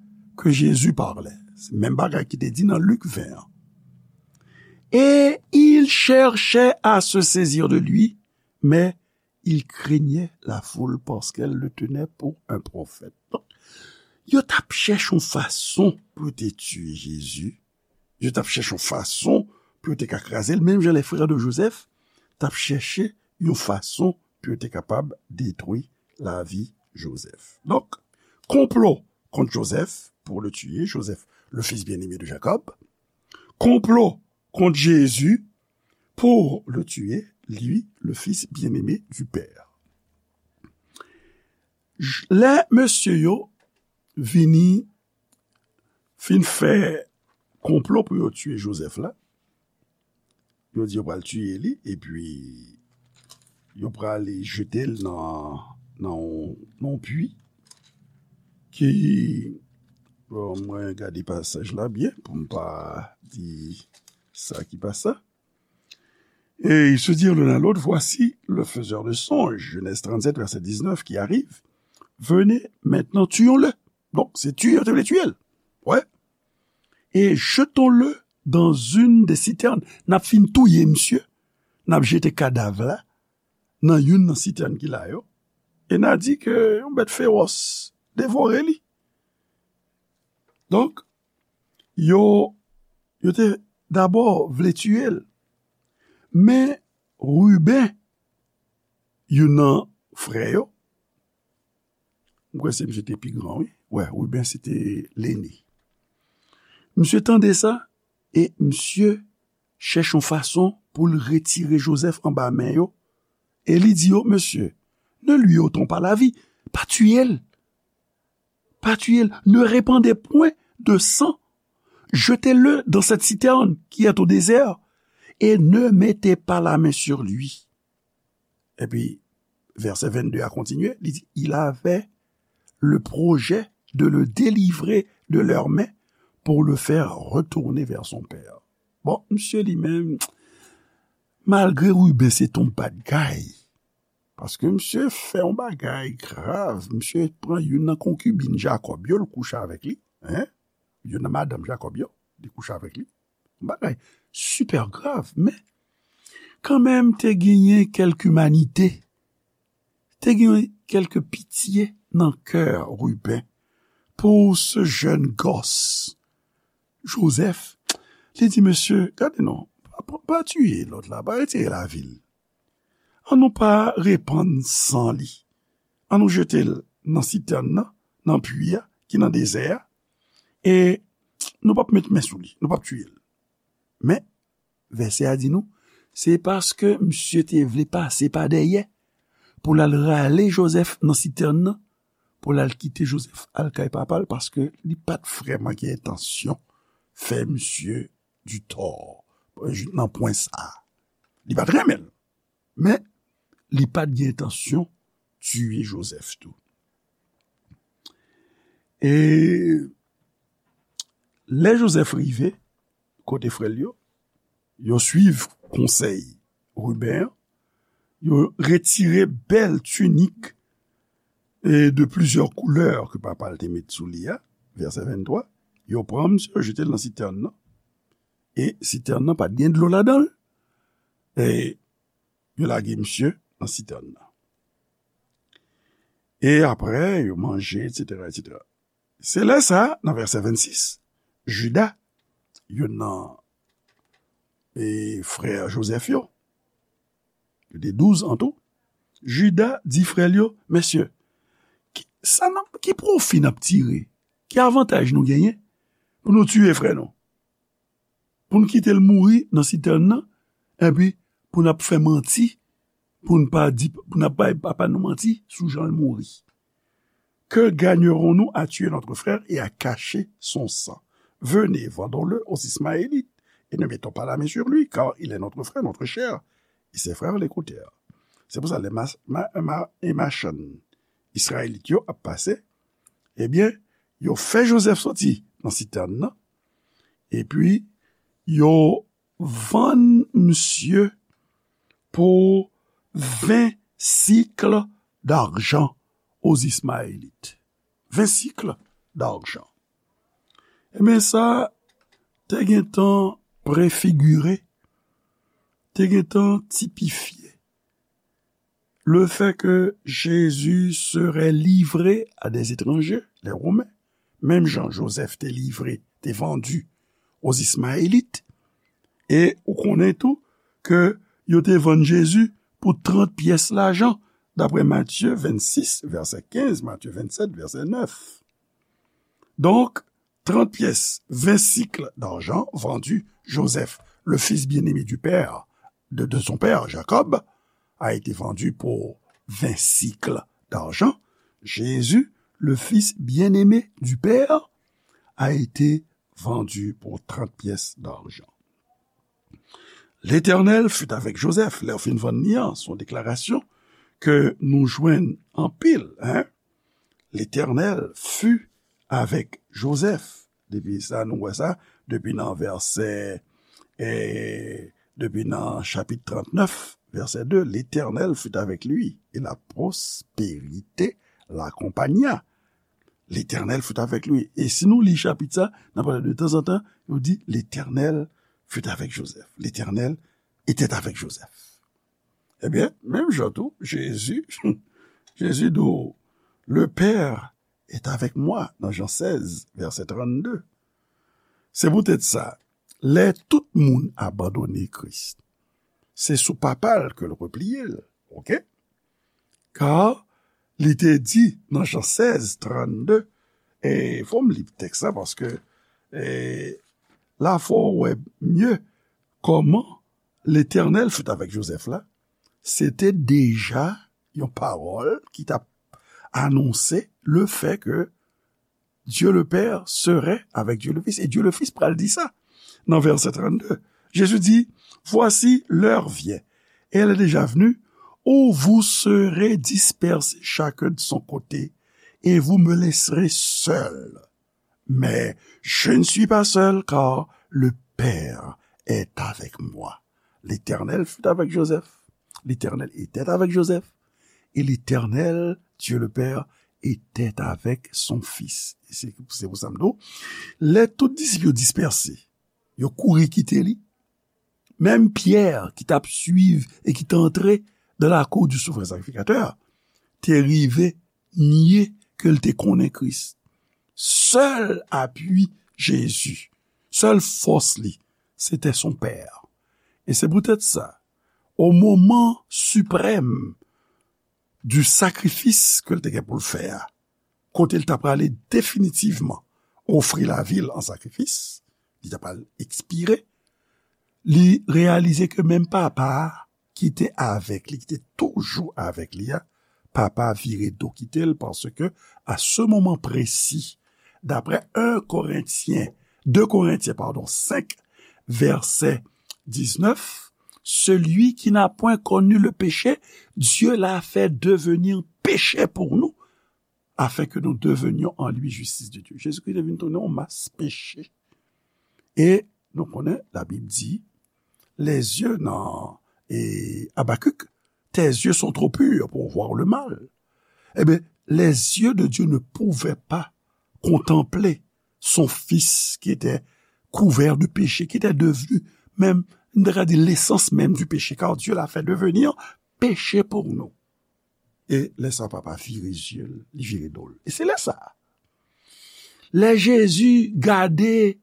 que Jésus parlait. Se menm bagay ki te di nan Lik ven an. Et ils cherchaient à se saisir de lui, mais ils craignaient la foule parce qu'elle le tenait pour un prophète. Donk, yo t ap chèche yon fason pou yo te tiye Jezi. Yo t ap chèche yon fason pou yo te ka kraze l, menm jan les frères de Joseph t ap chèche yon fason pou yo te kapab detwi lavi Joseph. Donk, konplo kont Joseph pour le tuer, Joseph, le fils bien-aimé de Jacob. Konplo kont Jezi pour le tuer, lui, le fils bien-aimé du Père. J- Lè mesye yo vini fin fè konplo pou yo tiye Joseph la, yo di yo pral tiye li, epi yo pral jete l nan, nan yon, nan yon pwi ki, bon, mwen gade pasaj la byen pou m pa di sa ki pa sa. Et ils se dirent l'un à l'autre, voici le faiseur de songes, Genèse trente-sept, verset dix-neuf, qui arrive. Venez maintenant, tuons-le. Donk, se tiye yo te vle tiye l. Wè. Et jetons-le dans une des citernes. N ap fin touye misye. N ap jete kadav la nan youn nan sitèn ki la yo. E n a di ke yon bèt fewòs devore li. Donk, yo, yo te dabò vle tiye l. Men Ruben, youn nan frè yo, m kwè se misye te pi gran, wi. Wè, Ruben se te lene. Misye tande sa, e misye chèche yon fason pou l retire Joseph anba men yo, e li di yo, mesye, ne lui ôtons pas la vie, pa tiye l. Pa tuer, ne répandez point de sang. Jetez-le dans cette citerne qui est au désert, et ne mettez pas la main sur lui. Epi, vèsè vennde a kontinye, li di, il avait le projet de le délivrer de leurs mains pour le faire retourner vers son père. Bon, misye li menm, malgre Ruben se t on bad guy, paske misye fè yon bagay grav, misye pran youn nan konkibin Jakòb yo, l kouche avèk li, en, youn nan madanm Jakòb yo, li kouche avèk li, yon bagay sipè grav, men kanmenm te genyen kèlk imanite, te gen kèlk pitye nan kè Ruben pou ce jeune gosse, Jozèf. Li di, mesye, gade non, pa, pa, pa tiye lòt la, pa retire lavi l. An nou pa repann san li. An nou jete l nan sitèn nan, nan pwi a, ki nan dezè a, e nou p ap met men sou li, nou p ap tiye l. Men, vèsè a di nou, se paske misye te vle pase pa dèyè pou l al rale Jozèf nan sitèn nan, pou l al kite Jozèf al kay papa l, paske li pa t vrèman gen entansyon fè misye ditò nan pwen sa a. Li pa t renmen l, men li pa t gen entansyon tiye Jozèf tou. E lè Jozèf rive kote frè l yo, yo suiv konsèy Ruben an, yo retire bèl tinik e de plizyè koulè ke papa l te met sou li a, vèsè venntwa, yo pran misye, yo jete l nan sitèn nan, e sitèn nan pa t gen dlo ladan l, e yo lage misye nan sitèn nan. E apre, yo manje, etsetera, etsetera. Se lè sa, nan vèsè vennsis, Jida, youn nan e, frè Jozèf yo, yo te douz an tou, Jida di frè l yo, mesye, ki, sa n ap, ki pwofi n ap tire? Ki avantaj nou genyen pou nou tiye frè nou? Pou n kite l mouri nan sitèn nan, epi pou n ap fè manti, pou n pa di, pou n ap bay papa nou manti sou jan l mouri. Que gagnerons-nous à tuer notre frère et à cacher son sang? Venez, vendons-le aux Ismaélites, et ne mettons pas la main sur lui, car il est notre frère, notre chair. Et ses frères l'écoutèrent. Se pou sa, lè ma, ma, ma, e machann Izrayelit yo ap pase, ebyen, yo fè Jozèf soti nan sitèn nan, epi yo vann misye pou ven sikl dajan aux Ismaélites. Ven sikl dajan. Ebyen, sa te gentan prefigire, te gentan tipifye le fait que Jésus serait livré à des étrangers, les Romains, menm jan Jozèf te livre, te vandi aux Ismaélites, e ou konnen tou ke yo te vann Jezi pou trant pyès lajan, daprè Matye vennsis, vèsè kenz, Matye vennsèt, vèsè nèf. Donk, trant pyès, ven sikl dajan, vendu, Joseph, le fils bien-aimé du père, de, de son père Jacob, a été vendu pour vingt sicles d'argent. Jésus, le fils bien-aimé du Père, a été vendu pour trente pièces d'argent. L'Éternel fut avec Joseph. Lè yo fin vann li an, se yon deklarasyon ke nou jwenn anpil, en. L'Éternel fut avec Joseph. Depi sa, nou wè sa, depi nan vèsè, eh, depi nan chapit trantnèf, vèsè de, L'Éternel fut avec lui, et la prospérité l'accompagna. L'Éternel fut avec lui. E si nou li chapit sa, n ap wè de tanzantan, yo di, L'Éternel fut avec Joseph. L'Éternel était avec Joseph. Ebyen, menm jan tou, Jezi, Jezi di w, Le Père est avec moi, nan Jan sèz, vèsè trannde. Se poutèt sa, lè tout moun abandone Kris, se sou Papa l ke l repliye l, oke? Ka li te di nan Jan sèz, trannde, e fò m li tèks la, paske, e, la fò w wè mye kòman Letènèl fut avèk Jozèf la, se te deja yon pawòl ki t ap anonse le fè ke Dieu le Père serait avec Dieu le Fils. E Dieu le Fils pral di sa nan vèsè trannde. Jezi di, Voici, l'heure vient, et elle est déjà venue, où vous serez dispersés chacun de son côté, et vous me laisserez seul. Mais je ne suis pas seul, car le Père est avec moi. L'Éternel fut avec Joseph. L'Éternel était avec Joseph. Et l'Éternel, Dieu le Père, était avec son Fils. E se, se pou sa m di w, lè tout disip yo dispèse, yo kouri kite li, menm Pyè ki t ap swiv e ki te antre dans la cour du souverain sacrificateur, te rive nye ke l te konnen Kris. Sèl apui Jezi, sèl fòs li, se te son Pè. E se poutèt sa, o moman siprèm du sakrifis ke l te gen pou l fè a, kote l ta prale definitivman ofri lavi l an sakrifis, li ta pral ekspire, li reyalize ke menm Papa a ki te avèk li, ki te toujou avèk li a, Papa a vire do kite l, paske a se moman presi, daprè en Korentyen, de Korentyen, padon, senk, vèsè diznèf, celui qui n'a point connu le péché, Dieu l'a fait devenir péché pour nous, afin que nous devenions en lui justice de Dieu. Jezikri te vin tounen yon mas peche. E nou konnen, Labib di, les yeux nan, e Abakik, tes yeux sont trop purs pour voir le mal. Eh bien, les yeux de Dieu ne pouvaient pas contempler son Fils qui était couvert de péché, qui était devenu même, on dirait, l'essence même du péché, car Dieu l'a fait devenir péché pour nous. E lè sa Papa vire zye l, li vire do l. E se lè sa, lè Jezi gade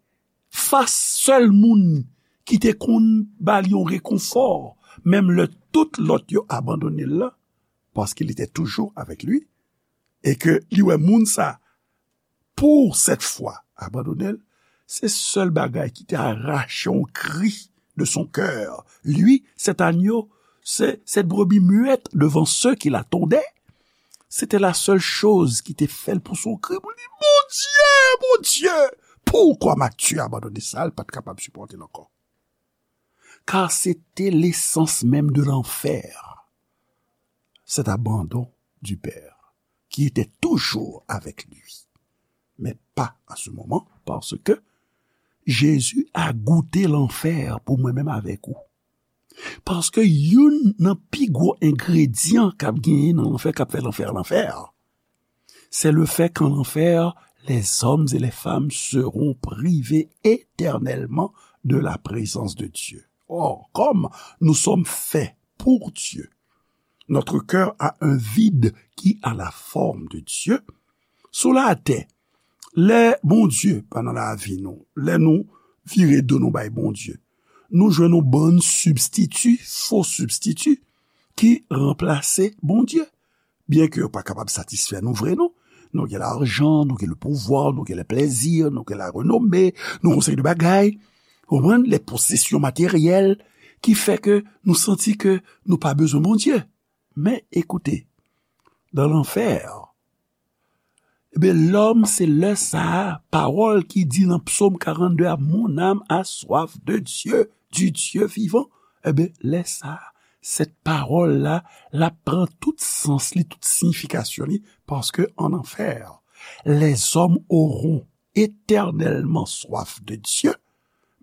fas sèl moun ki te konn ba li yon rekonfò, menm lè tout lòt yo abandone l la, paske li te toujou avèk li, e ke li wè moun sa, pour cette fois, abandone l, se sèl bagay ki te arache yon kri de son cœur. Lui, cet agneau, ce, cette brebis muette devant ceux qui l'attendaient, c'était la seule chose ki te fè l pouse yon kri pou l di, Bondye, Bondye, pourquoi m'as-tu abandonné? Sa l pa t kapab sipòte l ankò. Car c'était l'essence même de l'enfer, cet abandon du Père qui était toujours avec lui. Mais pas à ce moment, parce que Jésus a goûté l'enfer pour mwen menm avèk ou. Paske youn nan pi gwo engredyan k ap genyen nan lanfè, k ap fè lanfè, lanfè, c'est le fait qu'en enfer, les hommes et les femmes seront privés éternellement de la présence de Dieu. Or, comme nous sommes faits pour Dieu, notre cœur a un vide qui a la forme de Dieu. Sou latè, lè Bondye pa nan lavi nou, lè nou vire do nou bay Bondye, nou jwenn yon bann sibstiti, fo sibstiti, ki ranplase Bondye. Byen ke yo pa kapab satisfè nou vre, non. Nou gen lajan, nou gen le pouvwa, nou gen le plezi, nou gen la renome, nou gen yon seri de bagay. Ou konprann? Les possessions matérielles, ki fè ke nou santi ke nou pa bezwen Bondye. Men, ekoute, dans l'enfer, ebyen, lòm, se lè sa a, pawòl ki di nan Psaume quarante-deux a, mon âme a soif de Dieu, du Dieu vivant. Ebyen, lè sa a, cette parole-là, l ap pran tout sans li, tout siyifikasyon li, paske en enfer, les hommes auront éternellement soif de Dieu,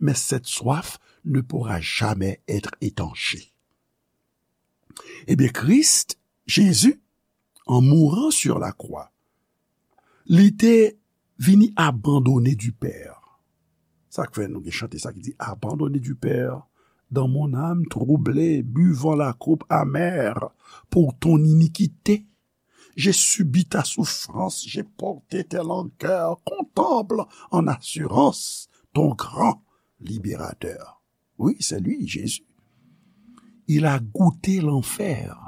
mais cette soif ne pourra jamais être étanchée. Ebyen, Kris, Jezi, en mourant sur la croix, li te vini abandonné du Père. Sa k fè nou gen chante sa ki di, abandonné du Père, dans mon âme troublée, buvant la coupe amère pour ton iniquité. J'ai subi ta souffrance, j'ai porté tes langueurs, contemple en assurance ton grand libérateur. Wi, se li, Jezi. Il a goûté l'enfer.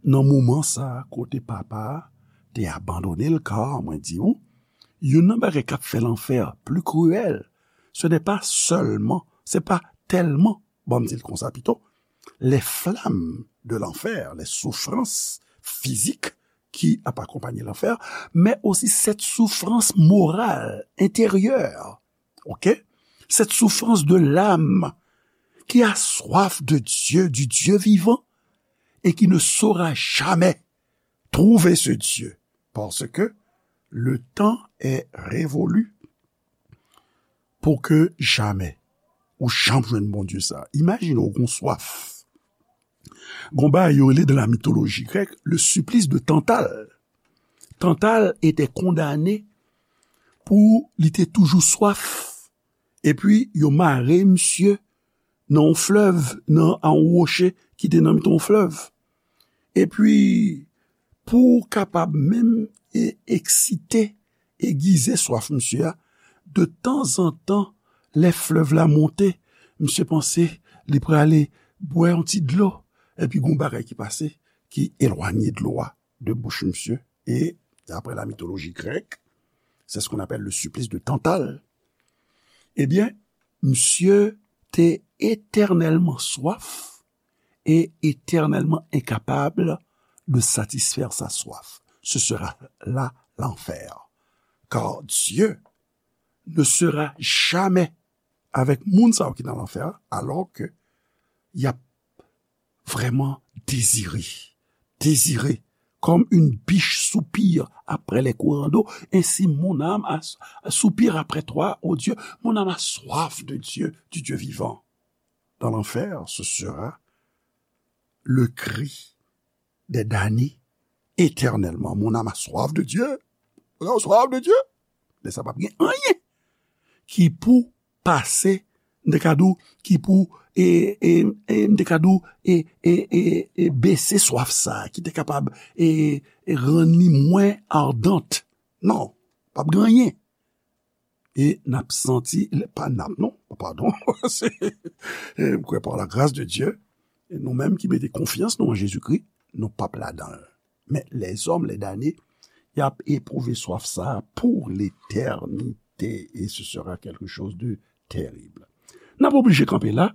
Nan moman sa a, kote Papa a te abandone l, ka mwen di w, youn nan bagay k ap fè lanfè pli kriyèl, ce n'est pas seulement, se pa tèlman, ban m di l konsa pito, les flammes de l'enfer, les souffrances physiques qui ap akonpanye lanfè, mais aussi cette souffrance morale, intérieure, ok? Cette souffrance de l'âme qui a soif de Dieu, du Dieu vivant, et qui ne saura jamais trouver ce Dieu, parce que le temps est révolu. pou ke jamè ou janm jwenn Bondye sa. Imajine w gon swaf. Gon bagay yo rele dans la mythologie grecque le supplice de Tantale. Tantale te kondane pou li te toujou swaf. Epi yo mare misye nan yon flèv, nan yon woche ki te nan mitan yon flèv. Epi, pou kapab menm e, eksite, egize swaf misye a, de tanzantan, lè flèv la monte, misye panse li prale bwè yon ti dlo, epi gon bagay ki pase, ki elwanye dlo a de bouch misye. E, d'après la mythologie grecque, c'est ce qu'on appelle le supplice de Tantale. Ebyen, misye te etènèlman swaf et éternellement incapable de satisfaire sa soif. Ce sera là l'enfer. Car Dieu ne sera jamais avec moun sa yo ki nan lanfè a, alò ke y ap vrèman dezire, dezire, comme une biche soupire après les courants d'eau, ainsi mon âme a, soupire après toi, ô Dieu, mon âme a soif de Dieu, du Dieu vivant. Dans l'enfer, ce sera le cri des damnés éternellement. Mon âme a soif de Dieu. Mon âme a soif de Dieu. Men sa p ap gen anyen ki pou pase, m te ka di w, ki pou, e, e, e, m te ka di w, e, e, e, e, bese swaf sa, ki te kapab, e, e, rann li mwen ardant. Non, p ap gen anyen. E n ap santi, pa n ap non, padon, se, e, m kwè par la grâce de Dieu, e nou menm ki mete konfyans nou an Jezikri, nou p ap ladan l. Men lèzòm, lèdane, y ap epwouve swaf sa a pou letènite, e ce sera quelque chose de terrible. N ap oblije kanpe la,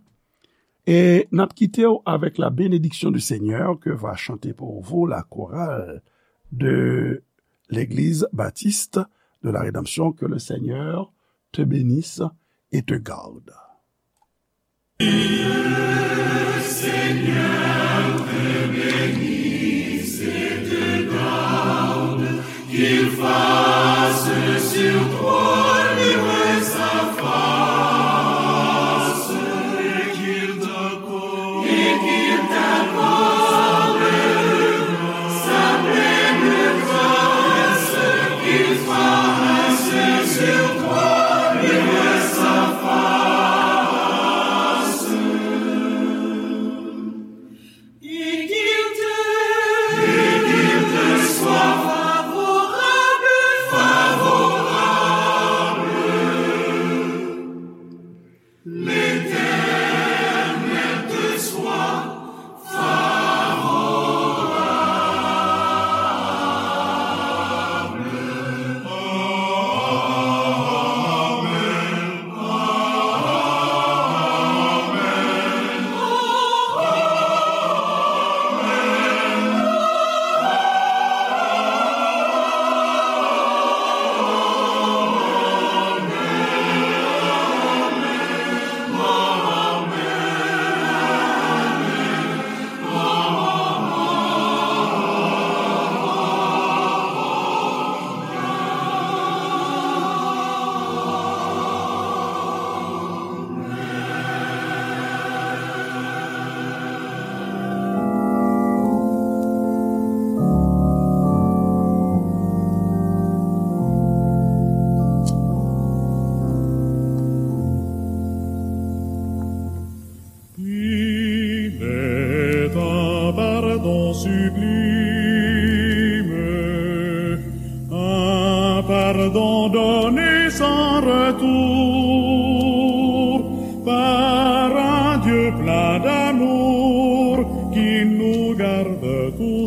e n ap kite w avec la bénédiction du Seigneur que va chanter pour vous la chorale de l'Église Baptiste de la Rédemption. Que le Seigneur te bénisse et te garde. Seigneur te bénisse et te garde, qu'il fasse sur toi luire sa face, et qu'il t'accorde, et qu'il t'accorde sa pleine grâce, qu'il fasse sur toi luire sa face. Et qu'il te, et qu'il te soit favorable, favorable. L'Éternel te soit favorable. Amen. Il est un pardon sublime, un pardon donné sans retour par un Dieu plein d'amour qui nous garde toujours.